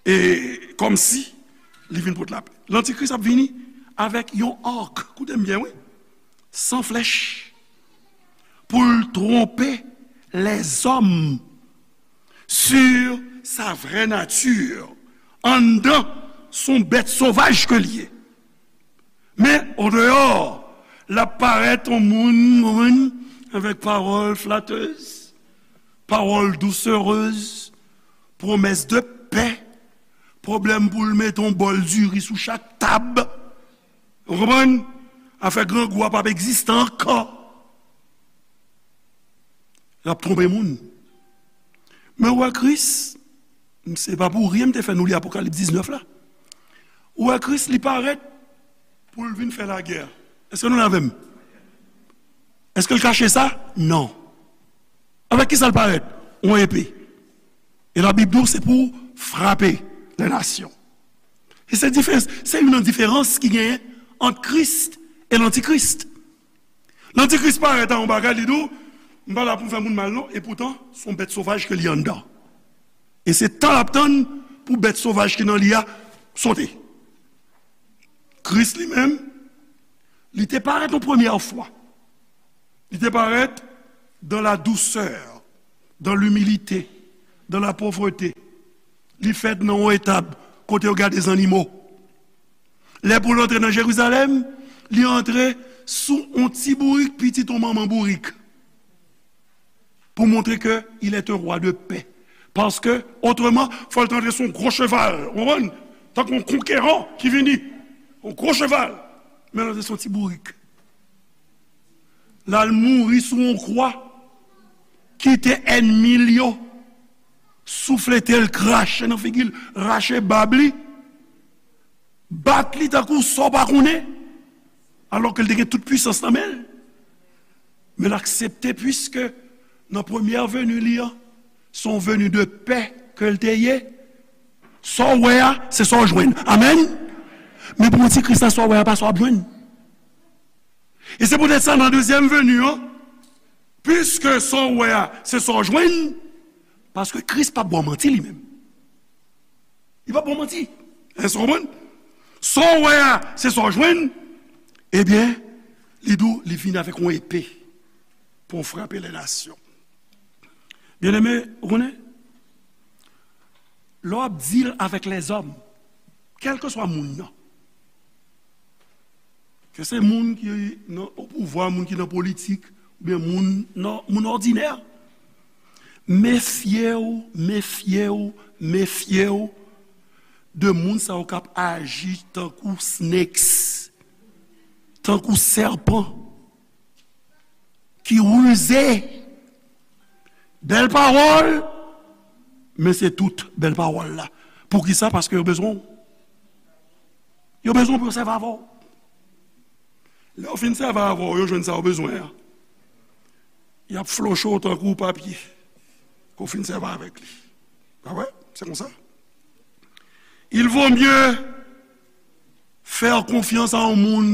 e kòmsi li vin pot lapè. Lantikris ap vini avèk yon arc, koute m byen, wi, san flèch, pou l twonpe lèzòm sur sa vraie nature. Anndan, se yon bèt sovaj ke l ye. Men, odeyò, l ap parèt yon moun, moun avèk pawòl flatèz, pawòl douserèz, pwomès de pè, pwoblèm pou l mete yon bòl diri sou chak tab. Ou konprann? Afè grangou a p ap egziste ankò. L ap twonpe moun. Men w wè Kris, se pa pou ryen m te fè nou li Apokalips diznèf la. Ou wè Kris, li parèt pou l vin fè lagè. Èske nou la avè m? Èske l kache sa? Non. Avèk ki sa l parèt? Yon epe. E Labib di w se pou frape lè nasyon. E se diferans, se youn nan diferans ki genyen ant Kris e lantikris. Lantikris parèt a yon bagay, li di w, m pa la pou m fè moun mal non, e poutan, se yon bèt sovaj ke li anndan. E se tan l ap tann pou bèt sovaj ki nan li a sote. Kris li menm, li te parèt yon premyè fwa. Li te parèt dans la douceur, dans l'humilité, dans la pauvreté. Li fèt nan yon etab kote yo gade zannimo. Lè pou l antre nan Jerizalèm, li antre sou yon ti bourik, pitit yon manman bourik, pou montre ke il est un roi de paix. Paske, otreman, fò l te antre sou yon gwo cheval, ou konprann? Tankou yon konkeran ki vini, yon gwo cheval. Men l antre sou yon ti bourik. L al mouri sou yon kwa, kite ènmi l yo souflete l, krache nan figi l, rache bab li, bat li tankou sa w pa konnen, alò ke l te gen tout pwisans nan men l. Men l aksepte, piske nan premyè veni li an, se yon veni de pè ke l te ye. Sa w wè a, se sa w jwenn. Amèn. Men pou Ti Kris la, sa w wè a pa sa w ap jwenn. E se poutèt sa, nan dezyèm veni an, piske sa w wè a, se sa w jwenn, paske Kris p ap ba w manti li menm. Li p ap ba w manti. Èske w konprann? Sa w wè a, se sa w jwenn. Ebyen, li di w, li vini avèk yon epe pou frape lè nasyon. Byeneme, ou konnen, lè w ap deal avèk lèzòm, kèlkeswa moun nan, ke se moun ki nan o pouvwa, moun ki nan politik, oubyen moun nan, moun òdinè, mefye w, mefye w, mefye w de moun sa yo k ap aji tankou snakes, tankou sèpan ki rize. Bèl pawòl, men se tout bèl pawòl la. Poukisa? Paske yo bezwen w. Yo bezwen w pou yo sèvi avè w. Lè yo fin sèvi avè w, yo jwenn sa yo bezwen an, y ap floche w tankou papye ke w fin sèvi avèk li. Pa vre? Se konsa. Il vaut mieux faire confiance à yon moun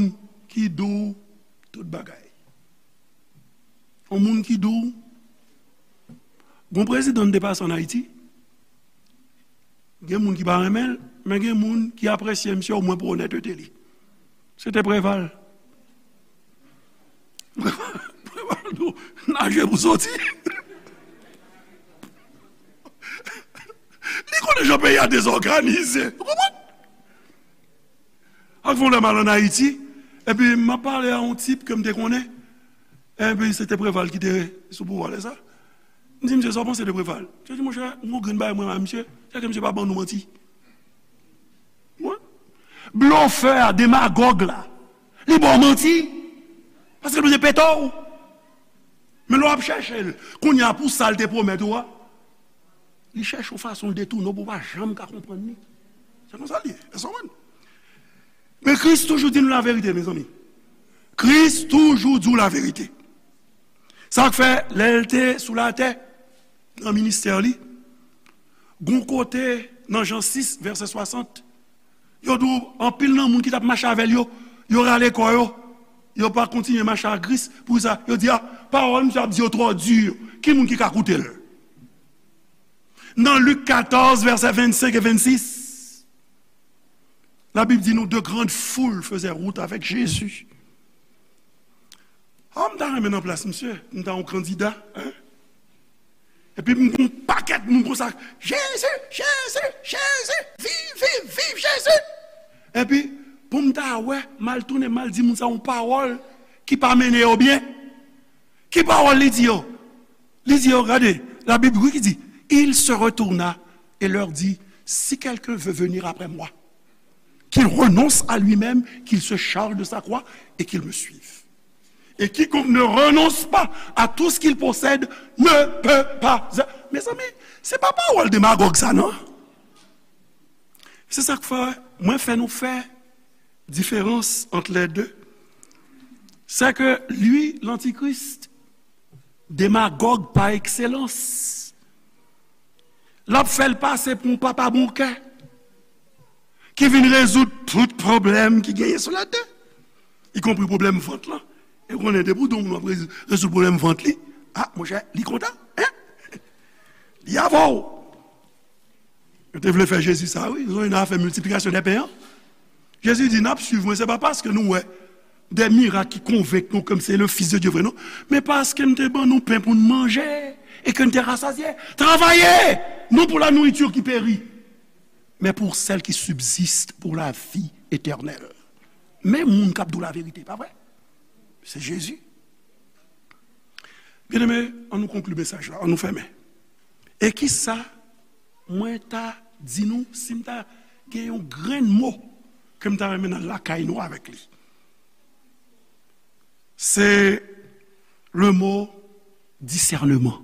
ki di w tout bagay. Yon moun ki di w, gon prezidan m te pase ann Ayiti, gen moun ki pa renmen l, men gen moun ki apresye misye omwen pou onètete li. Se te Preval. Preval, Preval di w, naje pou soti. Li konnen jan peyi a dezòganize. Ou konprann? Ak fon lè m al ann Ayiti, epi m ap pale a yon tip ke m te konnen, epi se te Preval ki te sou pouvwa lè sa. M di, "Misye, sa w panse de Preval?" Misye di, "Monchè, m gon grenn bagay mwen a misye, se ke misye pa ban nou manti." Wi. Blofè a, demagòg la, li ba w manti, paske l bezwen pete w. Men lè w ap chèche l, kounye a pou sa l te pwomèt ou a, li chèche yon fason l detounen w pou w pa janm ka konprann li. Se konsa l ye. Èske w konprann? Men Kris toujou di nou laverite, mezanmi. Kris toujou di w laverite. Sa k fè, lè l te sou latè, nan ministè li, gon kote nan Jan sis, vèsè swasant, yo di w anpil nan moun ki t ap mache avè l yo, yo rale kò yo, yo pa kontinye mache ak Kris. Poukisa? Yo di, "A, pawòl misye ap di yo twò di. Ki moun ki ka koute l?" Nan Lik katòz, vèsè vennsenk e vennsis, Labib di nou, de grandes foules faisaient route avec Jésus. A, m ta renmen nan plas misye, m ta yon kandida, en. Epi m gon pakèt moun konsa, Jezi, Jezi, Jezi, viv, viv, viv Jezi. Epi, pou m ta wè, m al tounen, m al di moun sa yon pawòl ki pa mennen yo byen. Ki pawòl li di yo? Li di yo, gade, Labib wi ki di, il se retourna et leur dit, si quelqu'un veut venir après moi, qu'il renonce à lui-même, qu'il se charge de sa croix et qu'il me suive. Et quiconque ne renonce pas à tout ce qu'il possède ne peut pas. Mezanmi, se pa pawòl demagòg sa, non. Se sa k fè, mwen fè nou fè diferans ant lè de. C'est que lui, l'antichrist, demagòg pa ekselans. L ap fè l pase pou yon papa bon kè ki vin rezoud tout pwoblèm ki genyen sou latè, ikonpri pwoblèm vant lan. E w konnen, depi w di yon moun w ap rezoud, rezoud pwoblèm vant li, a, monchè, li kontan, en? Li avè w. Yo te vle fè Jezi sa, wi. Yo te vle fè miltiplikasyon dè pen an. Jezi di, n ap swiv mwen, se pa paske nou wè des miracles qui convainquent nous que c'est le Fils de Dieu vrai, non. Mais parce que nous te ban nou pen pour nous manger et que nous te rassasiés. Travaillez, non pour la nourriture qui périt, mais pour celle qui subsiste pour la vie éternelle. Men moun k ap di w laverite, pa vre? Se Jezi. Byeneme, ann nou konkli mesaj la, ann nou fèmen. E kisa mwen ta di nou si m ta gen yon grenn mo ke m ta renmen n al lakay nou avèk li? Se le mo disèneman.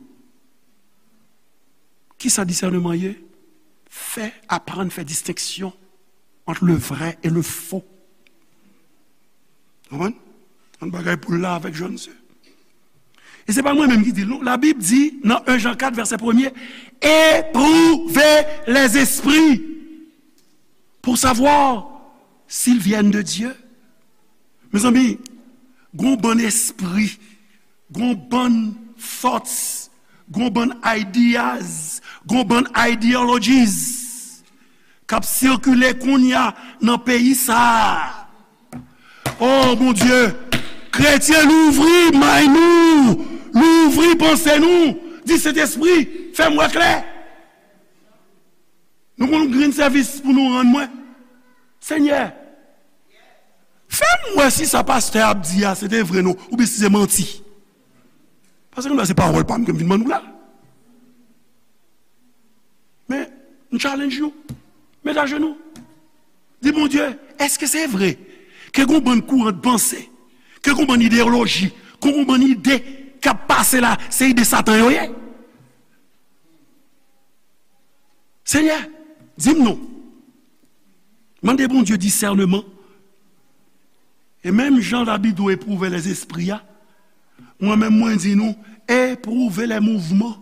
Kisa disèneman ye? Fè, aprann fè distenksyon ant le vrè e le fo. Konprann? Yon bagay pou l la avèk Jòn se. E se pa mwen menm ki di l, non. Labib di nan en Jan kat, vèsè premye, éprouvez les esprits pour savoir s'ils viennent de Dieu. Mezanmi, gon bann espri, gon bann thoughts, gon bann ideas, gon bann ideologies k ap sikile kounye a nan peyi sa a. Oh, Bondye, kretyen, louvri may nou, louvri panse nou, di Sentespri, fè m wè klè. Nou gon grenn sèvis pou nou rann mwen. Senyè, fè m wè si sa pastè ap di a se te vre non, oubyen si se manti. Paske nou wè se pawòl pa m ke m vin ban nou la. Men, m challenge nou. Met ajenou. Di Bondye, èske se vre ke gon bann kouran de panse, ke gon bann ideyoloji, ke gon bann ide k ap pase la, se ide Satan yo ye? Senyè, di m non. Mande Bondye disèneman. E menm jan Labib di w epwouve lèzespri a, mwen menm mwen di nou, epwouve lè mouvman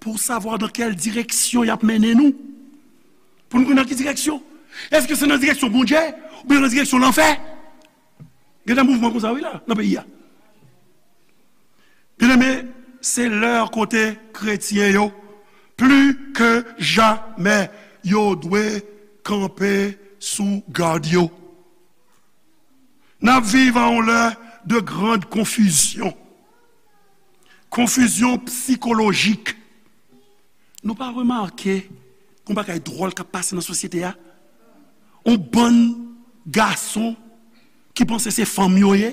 pou savwa dan kèl direksyon y ap mennen nou. Pou nou konn nan ki direksyon. Èske se nan direksyon Bondye oubyen nan direksyon lanfè? Gen de mouvman konsa wi la, nan peyi a. Byeneme, se lè kote kretyen yo, pli ke jamè, yo dwe kanpe sou gad yo. N ap viv a yon lè de grand konfizyon. Konfizyon sikolojik. Nou pa remake yon bagay dwòl k ap pase nan sosyete a? Yon bann gason ki panse se fanm yo ye.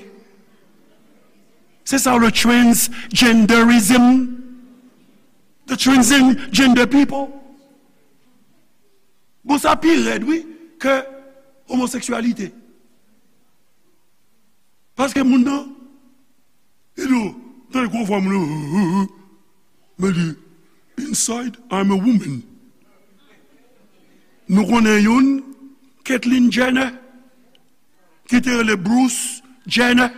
Se sa le transgenderism. The transgender people. Bon, sa pi rèd, wi, ke omoseksyalite. Paske moun nan, li di w, tande gwo vwa moun nan, men li, inside, I'm a woman. Nou konnen youn, Caitlyn Jenner, ki te rele Bruce Jenner.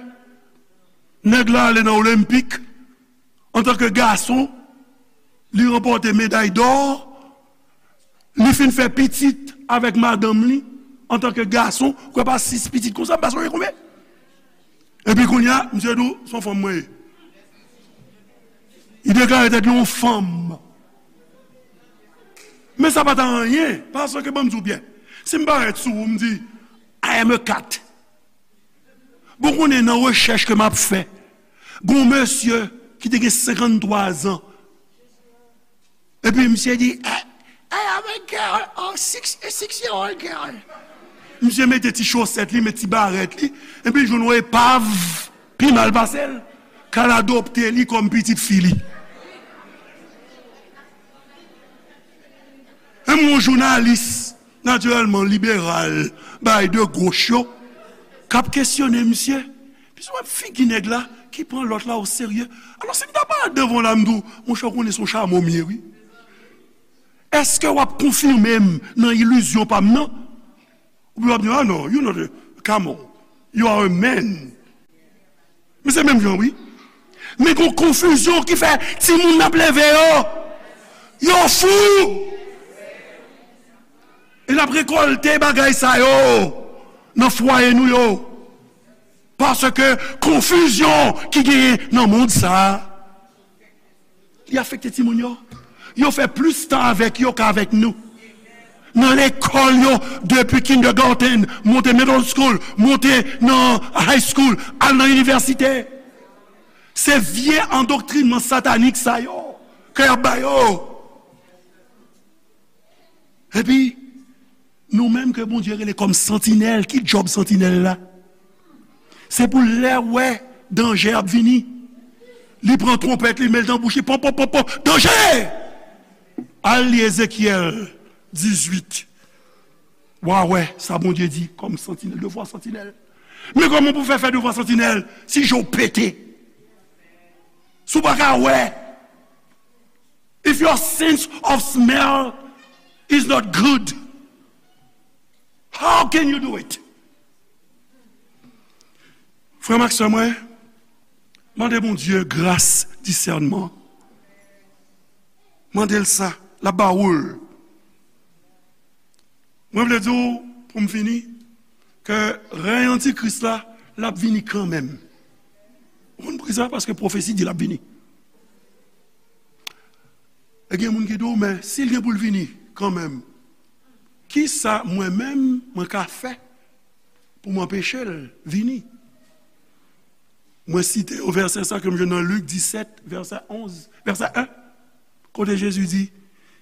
Nèg la ale nan Olenpik, antanke gason, li ranpòte meday dò, li fin fè pitit avèk madanm li, antanke gason, kwè pa sis pitit konsa, m pa sonje konbyen. Epi kounye a, misye di w, se yon fanm mwen ye. Li deklare tèt li yon fanm. Men sa pa t anyen, paske ban m di w byen. Si m parèt sou ou, m di, I am a cat. Bon, konnen nan rechèch ke m ap fè, gon mesye ki te gen senkanntwa zan, epi misye di, I, I am a girl, a six, a six year old girl. Misye mete ti chosèt li, met ti barèt li, epi l jwenn yon epav pi mal pase l, k al adopte li kòm pitit fi li. Menm yon jounalis, natirèlman liberal, bay de goch yo, k ap kesyone misye. Misye wè figi nèg la ki pran lòt la oserye. Alò, si m ta parèt devan w la, m di w, monchè, w konnen se yon chamo m ye, wi. Èske w ap konfime m nan ilizyon pa m nan? Oubyen w ap di, ah non, you not a camel, you are a man. Men se menm jan, wi. Men gon konfizyon ki fè timoun n ap leve yo, yo fou. E n ap rekòlte bagay sa yo nan fwaye nou yo. Paske konfizyon ki genyen nan mond sa a, li afekte timoun yo. Yo fè plis tan avèk yo k avèk nou. Nan lekòl yo, depi kindergarten, monte middle school, monte nan high school, al nan inivèsite. Se vye andoktrinman satanik sa yo ke y ap ba yo. Epi, nou menm ke Bondye rele kòm santinèl, ki djòb santinèl la? Se pou lè wè danje ap vini, li pran twonpèt, li met l nan bouch li, pon, pon, pon, pon, danje! Al li Ezekyèl dizuit. W a wè sa Bondye di kòm santinèl, devwa santinèl. Men kòman pou fè fè devwa santinèl si je w pete? Si w pa ka wè, if your sense of smell is not good, how can you do it? Frè m ak sè mwen, mande Bondye gras disènman. Mande l sa, l ap ba ou l. Mwen vle di w, pou m fini, ke rèy antikris la, l ap vini kanmenm. Ou konn poukisa? Paske pwofesi di l ap vini. E gen moun ki di w, men si l gen pou l vini kanmenm, kisa mwen menm mwen ka fè pou m anpeche l vini? Mwen site yon vèsè sa ke m jwenn nan Lik disèt, vèsè onz, vèsè en, kote Jezi di,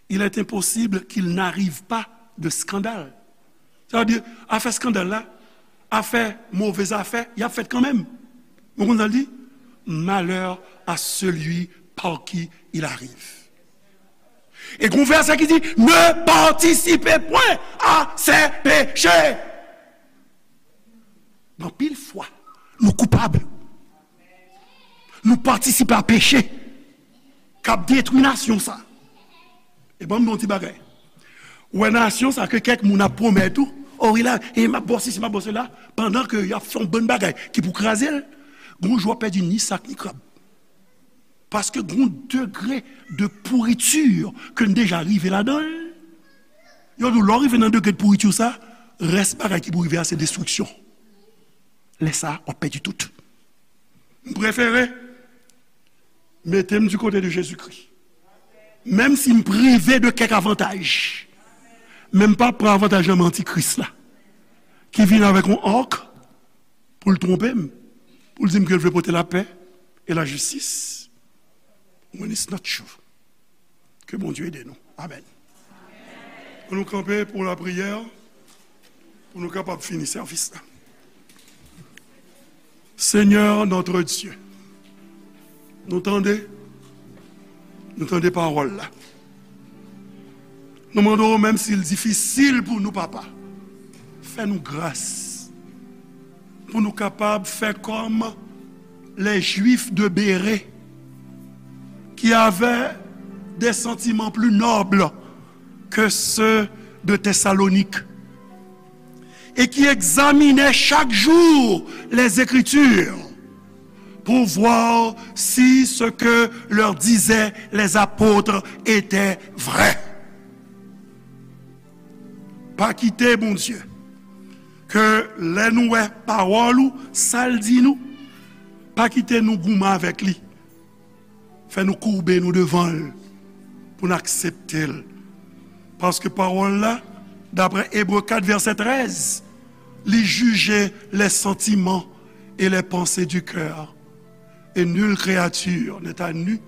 il est impossible qu'il n'arrive pas de scandale. Sa vle di, afè eskandal la, afè move zafè, y ap fèt kanmenm. Ou konn sa l di? Malheur à celui par qui il arrive. E gon vèsè ki di, ne participez point à ses péchés. Anpil fwa, nou koupab. Nou patisipe a peche k ap detwi nasyon sa. E ban m di yon ti bagay. Ou wè nasyon sa ke kèk moun ap pwomèt ou, o wi la, e m ap ba w sesi, m ap ba w sela, pandan ke y ap fè yon bann bagay ki pou kraze l, gon jou w ap pèdi ni sak ni krab. Paske gon degre de pourriture ke n deja rive ladan l. Yo di w, lè w rive nan degre de pourriture sa, rès bagay ki pou rive a se destriksyon. Lè sa, w ap pèdi tout. M prefere mete m du côté de Jésus-Christ. Menm si m prive de kèk avantaj, men m p ap pran avantaj nan men antikris la, ki vin avèk yon ark pou l twonpe m, pou l di m ke l vle pote lapè e lajistis. When it's not true. Ke Bondye ede nou. Amèn. An nou kanpe pou lapriyè, pou nou kapab fini sèvis la. Seigneur notre Dieu, nou tande, nou tande pawòl la. Nou mande w, menm si l difisil pou nou, Papa, fè nou gras pou nou kapab fè kòm les Juifs de Bérée, qui avaient des sentiments plus nobles que ceux de Thessalonique et qui examinaient chaque jour les Écritures pour voir si ce que leur disaient les apôtres était vrai. Pa kite, Bondye, ke lè nou wè pawòl ou, sa l di nou, pa kite nou goumen avèk li. Fè nou koube nou devan l pou n aksepte l. Paske pawòl la, daprè Ebre kat vèsè trèz, li jije les sentiments et les pensées du cœur. Et nulle créature n'est à nu,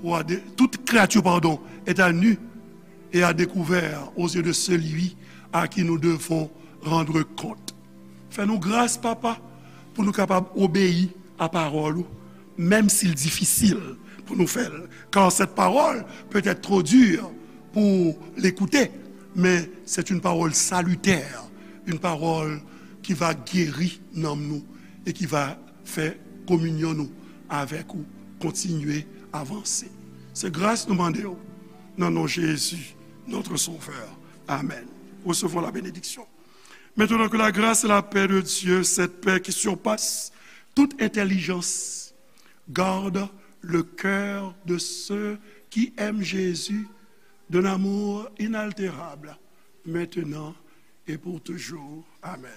ou à dé-, toute créature, pardon, est à nu et à découvert aux yeux de celui à qui nous devons rendre compte. Fè nou gras, Papa, pou nou kapab obeyi a pawòl ou, menm si l difisil pou nou fè l. Car cette parole peut être trop dure pour l'écouter, mais c'est une parole salutaire, une parole qui va guérir nanm nou et qui va fè kominyon nou avèk ou kontinye avanse. Se gras nou mande w, nan non Jezi, notre Sauveur. Amen. Recevons la bénédiction. Maintenant que la grâce et la paix de Dieu, cette paix qui surpasse toute intelligence, garde le cœur de ceux qui aiment Jésus d'un amour inaltérable, maintenant et pour toujours. Amen.